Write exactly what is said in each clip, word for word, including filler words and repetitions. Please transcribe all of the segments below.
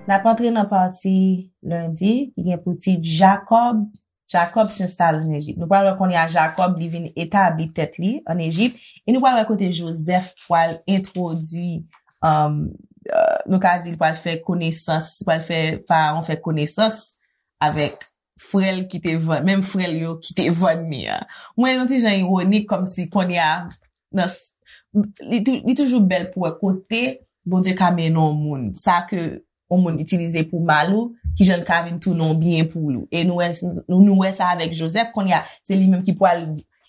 N ap antre nan pati lendi ki gen pou tit Jakòb. Jakòb s'installe en Égypte. Nou pral wè kounye a Jakòb li vin etabli tèt li ann Ejip. E nou pral wè kote Jozèf pral entwodui, um, uh, nou ka di l pral fè konesans, pral fè Farawon fè konesans avèk frè l ki te vann, menm frè l yo ki te vann li a. Mwen, yon ti jan iwonik, kòmsi kounye a, nan, s- li, tou- li toujou bèl pou wè kote Bondye ka mennen yon moun. Sa ke yon moun itilize pou mal ou, ki jan l ka vin tounen yon byen pou ou. E nou wè, nou, nou wè sa avèk Jozèf, kounye a, se li menm ki pral,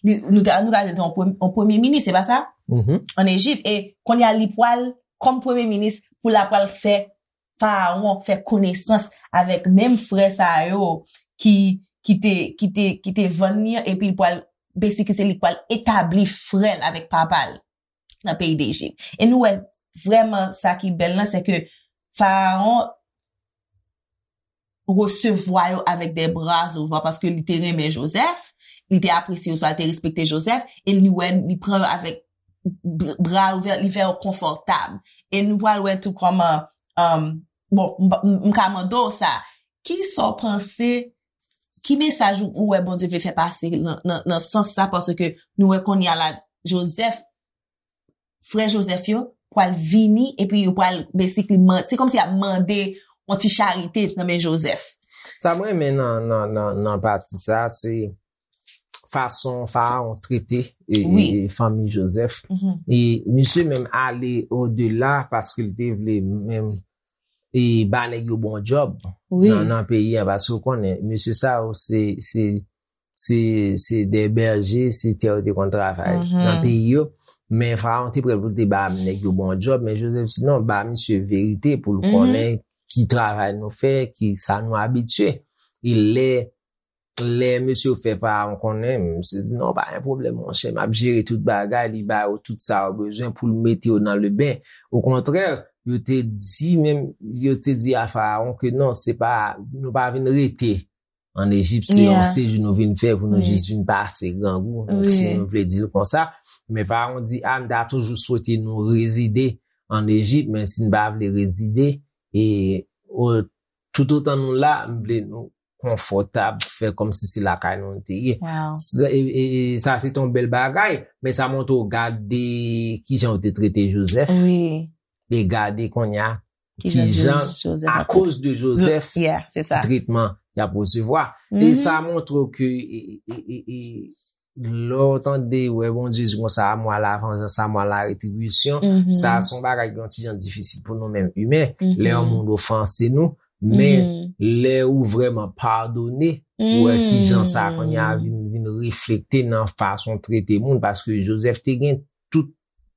li, nou ta, nou ta di l te yon prem- yon premye minis, se pa sa? Ann Ejip. E kounye a, li pral, kòm premye minis, pou l ap pral fè Farawon fè konesans avèk menm frè sa yo ki, ki te, ki te, ki te vann li an, epi l pral, basically, se li k pral etabli frè l avèk papa l nan peyi Dejip. E nou wè vrèman sa ki bèl lan, se ke Farawon resevwa yo avèk de bra ouvè paske li te renmen Jozèf, li te apresye yo, sa li te respekte Jozèf, e li wè, li pran yo avèk bra ouvè, li fè yo konfòtab. E nou pral wè tou kòman, um, bon, m, m, m ka mande w sa, ki sa w panse, ki mesaj ou, ou wè Bondye vle fè pase nan, nan, nan sans sa, paske nou wè kounye a la, Jozèf, frè Jozèf yo, pral vini, epi yo pral, basically, man- se kòmsi y ap mande yon ti charite nan men Jozèf. Sa mwen renmen nan, nan, nan, nan pati sa, se fason Farawon trete e, e, Wi. e fanmi Jozèf. E misye menm ale odela paske l te vle menm e ba nèg yo bon djòb Wi. nan, nan peyi an. Paske w konnen, mesye sa yo, se, se, se, se de bèje, se tè yo te konn travay nan peyi yo. Men Farawon te prè pou l te ba nèg yo bon djòb, men Jozèf di non, ba misye verite pou l konnen ki travay nou fè, ki sa nou abitye. E lè, lè mesye yo fè Farawon konnen, misye di non, pa gen pwoblèm, monchè, m ap jere tout bagay, li ba yo tout sa yo bezwen pou l mete yo nan leben. Okontrè, yo te di menm, yo te di a Farawon ke non, se pa, nou pa vin rete ann Ejip, se yon Yeah. sejou nou vin fè pou nou Wi. jis vin pase grangou, Wi. si nou vle di l konsa. Men Farawon di, a, m ta toujou swete nou rezide ann Ejip, men si n pa vle rezide, e o, toutotan nou la, m vle nou konfòtab, fè kòmsi se lakay nou nou te ye. Wow. Sa, e, e, e, sa se yon bèl bagay, men sa montre w gade kijan yo te trete Jozèf. Wi. E gade kounye a, Kijan kijan, Jozèf akoz de Jozèf, Yeah, se sa. tretman y ap resevwa. E Mhm. sa montre w ke, e, e, e, e, lè w tande, wè Bondye di konsa, à moi la vengeance, à moi la rétribution, Mhm. sa se yon bagay ki yon ti jan difisil pou nou menm imen. Mhm. Lè yon moun ofanse nou, men Mhm. lè ou vrèman padone, ou wè kijan sa kounye a Mhm. vin, vin reflekte nan fason trete moun, paske Jozèf te gen tout,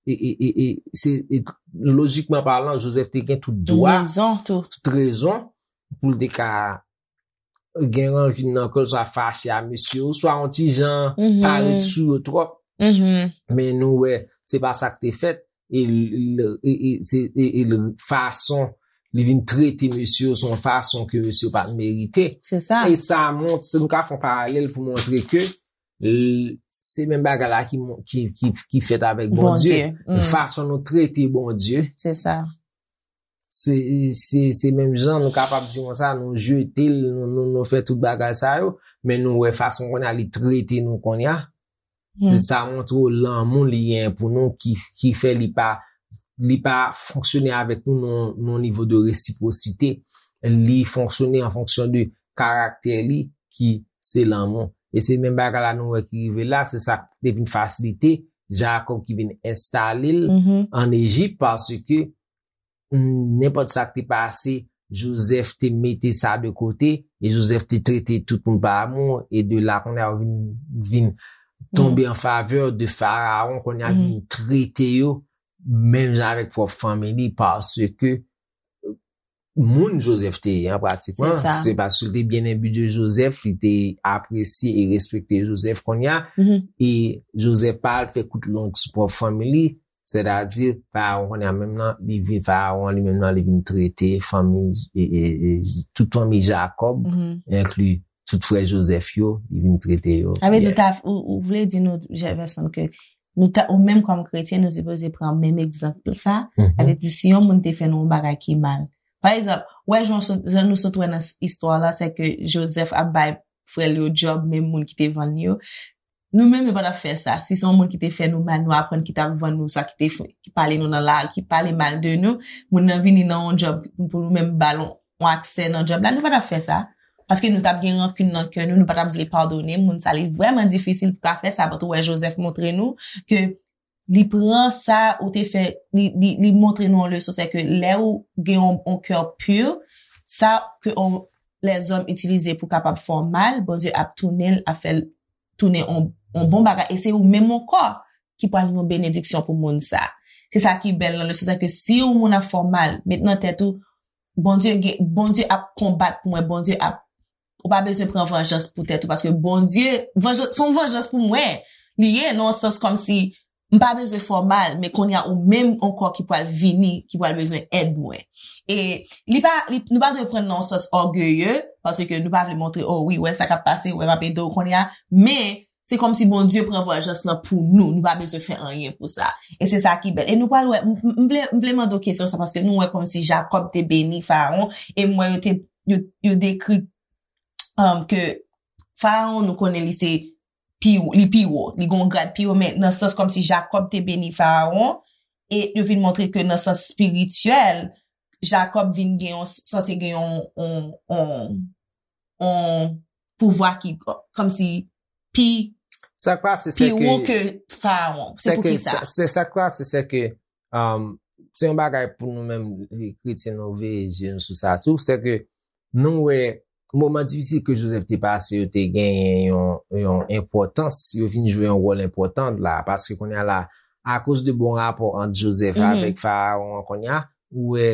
e, e, e, e, se, e, lojikman palan, Jozèf te gen tout dwa, Rezon tou. tout rezon pou l te ka gen rankin nan kè l, swa fache a mesye yo, swa yon ti jan Mhm. parèt sou yo twòp. Mhm. Men nou wè, se pa sa k te fèt. E l, e, e, se, e, e l, fason li vin trete mesye yo, se yon fason ke mesye yo pa t merite. Se sa. E sa mont, se nou ka fè yon paralèl pou montre ke l, se menm bagay la ki, mon- ki, ki, ki fèt avèk Bondye. Bondye. Mm. Fason nou trete Bondye. Se sa. Se, se, se menm jan nou kapab di konsa, nou jete l, nou, nou, nou fè tout bagay sa yo, men nou wè fason kounye a li trete nou kounye a. Se Mm. sa montre w lanmou li gen pou nou ki, ki fè li pa, li pa fonksyone avèk nou nan, nan nivo de resipwosite. Li fonksyone an fonksyon de karaktè li ki se lanmou. E se menm bagay la nou wè ki rive la, se sa k te vin fasilite Jakòb ki vin enstale l Mhm. ann Ejip, paske nenpòt sa k te pase, Jozèf te mete sa de kote, e Jozèf te trete tout moun pa amou, e de la, kounye a, yo vin, vin tonbe an favè de Farawon, kounye a, vin trete yo, menm jan avèk pwòp fanmi li, paske moun Jozèf te ye, an pratikman, Se sa. se paske li te byen enbi de Jozèf, li te apresye e respekte Jozèf, kounye a, Mhm. e Jozèf pa al fè kout long sou pwòp fanmi li, sètadi, Farawon kounye a menm nan, li vin Farawon, li menm nan, li vin trete fanmi, e, e, e, tout fanmi Jakòb, Mhm. enkli tout frè Joseph yo, li vin trete yo. Sa vle di ou ta, ou, ou vle di nou, Jefferson, ke nou ta, ou menm kòm kretyen, nou sipoze pran menm egzanp sa. Sa vle di, si yon moun te fè nou yon bagay ki mal, pa egzanp, wè, jan sot, jan nou sot wè nan s-, istwa la, se ke Joseph ap bay frè l yo djòb, menm moun ki te vann yo. Nou menm, nou pa t ap fè sa. Si se yon moun ki te fè nou mal, nou aprann ki t ap vann nou, sa ki te fè, ki pale nou nan lari, ki pale mal de nou, moun nan vini nan yon djòb pou nou menm ba l yon, yon aksè nan djòb la, nou pa t ap fè sa. Paske nou t ap gen rankin nan kè nou, nou pa t ap vle padone moun sa. Li vrèman difisil pou ka fè sa, but ou wè Joseph montre nou ke li pran sa ou te fè, li, li, li montre nou yon leson, se ke lè ou gen yon, yon kè pi, sa ke on, lèzòm itilize pou kapab fè w mal, Bondye ap tounen l, ap fè l tounen on, on bon bagay, e se ou menm ankò ki pral yon benediksyon pou moun sa. Se sa ki bèl nan leson sa, ke si yon moun ap fè w mal, met nan tèt ou, Bondye gen, Bondye ap konbat pou mwen, Bondye ap, ou pa bezwen pran vanjans pou tèt ou, paske Bondye, vanjans, se yon vanjans pou mwen. Li ye, nan yon sans kòmsi, m pa bezwen fè w mal, men kounye a ou menm ankò ki pral vini, ki pral bezwen èd mwen. E li pa, li, nou pa dwe pran nan yon sans ògeye, paske nou pa vle montre, oh wi, wè sa k ap pase, wè m ap ede w kounye a, men se kòmsi Bondye pran vanjans lan pou nou, nou pa bezwen fè anyen pou sa. E se sa ki bèl. E nou pral wè, m, m, m vle, m vle mande w kesyon sa, paske nou wè kòmsi Jakòb te beni Farawon, e m wè yo te, yo, yo dekri, um, ke Farawon, nou konnen li se pi, li pi wo, li gon grad pi wo, men nan sans kòmsi Jakòb te beni Farawon, e yo vin montre ke nan sans espirityèl, Jakòb vin gen yon, sanse gen yon, yon, yon, yon pouvwa ki kòmsi pi, Sa k pase, se pi wo ke, ke Farawon. Se se pou ke, ki sa? sa, se sa k pase, se ke, um, se yon bagay pou nou menm, kretyen, nou veye je nou sou sa tou, se ke nou wè moman difisil ke Joseph te pase yo te genyen yon, yon enpòtans, yo vin jwe yon wòl enpòtan la, paske kounye a la, akoz de bon rapò ant Joseph Mhm. avèk Farawon an kounye a, ou wè,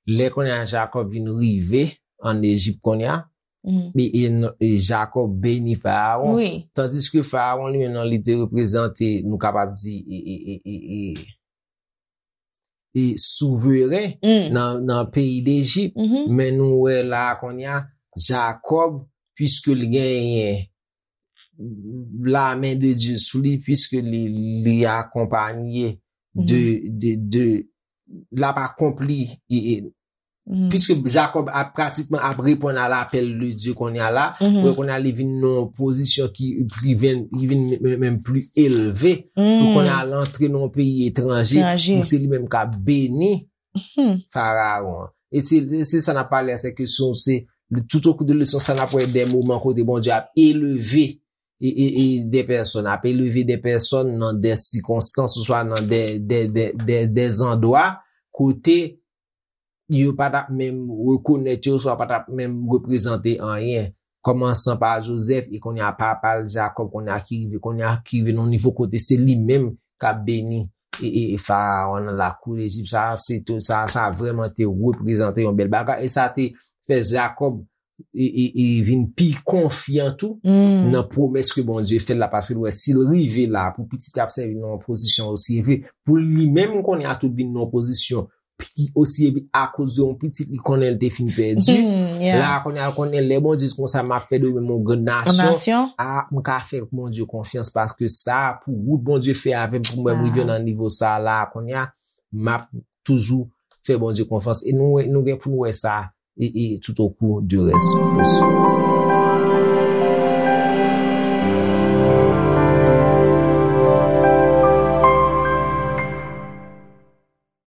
lè kounye a Jakòb vin rive ann Ejip kounye a, Mhm. e, e, e Jakòb beni Farawon. Wi. Tandiske Farawon li menm nan li te reprezante, nou kapab di, e, e, e, e, e, e souveren Mm. nan, nan peyi Dejip. Mhm. Men nou wè la kounye a, Jakòb, piske li genyen la men de Dye sou li, piske li, li akonpanye de, de, de, l ap akonpli, e, e, Mhm. piske Jakòb ap pratikman ap reponn a lapèl de Dye kounye a la, Mhm. wè kounye a li vin nan yon pozisyon ki, ki vin, ki vin menm, menm pli elve, pou Mm. kounye a l antre nan yon peyi etranje, Etranje. pou se li menm k ap beni Mhm. Farawon. E se, se sa n ap pale a, se ke se, se, tout au cours de leson sa n ap wè de moman kote Bondye ap elve e, e, e de pèsòn, ap elve de pèsòn nan de sikonstans, oswa nan de, de, de, de, de zandwa kote yo pa t ap menm rekonèt yo, oswa pa t ap menm reprezante anyen. Kòmansan pa Joseph, e kounye a papa l Jakòb, kounye a ki rive, kounye a ki rive nan nivo kote se li menm k ap beni e, e, e Farawon nan lakou Lejip. Sa, se te, sa, sa vrèman te reprezante yon bèl bagay. E sa te fè Jakòb e, e, e vin pi konfyan tou Mm. nan pwomès ke Bondye fè l la, paske l wè si l rive la pou pitit ap sèvi nan yon pozisyon osi elve, pou li menm kounye a tou vin nan yon pozisyon pi osi elve akoz de yon pitit li konnen l te fin pèdi. Mm, yeah. La kounye a l konnen lè Bondye di konsa m ap fè de ou menm yon grann Yon nasyon, nasyon. a, m ka fè Bondye konfyans paske sa pou wout Bondye fè avè m pou mwen m rive Wow. nan nivo sa la kounye a, m ap toujou fè Bondye konfyans. E nou, nou gen pou nou wè sa e, e tout au cours de rès leson.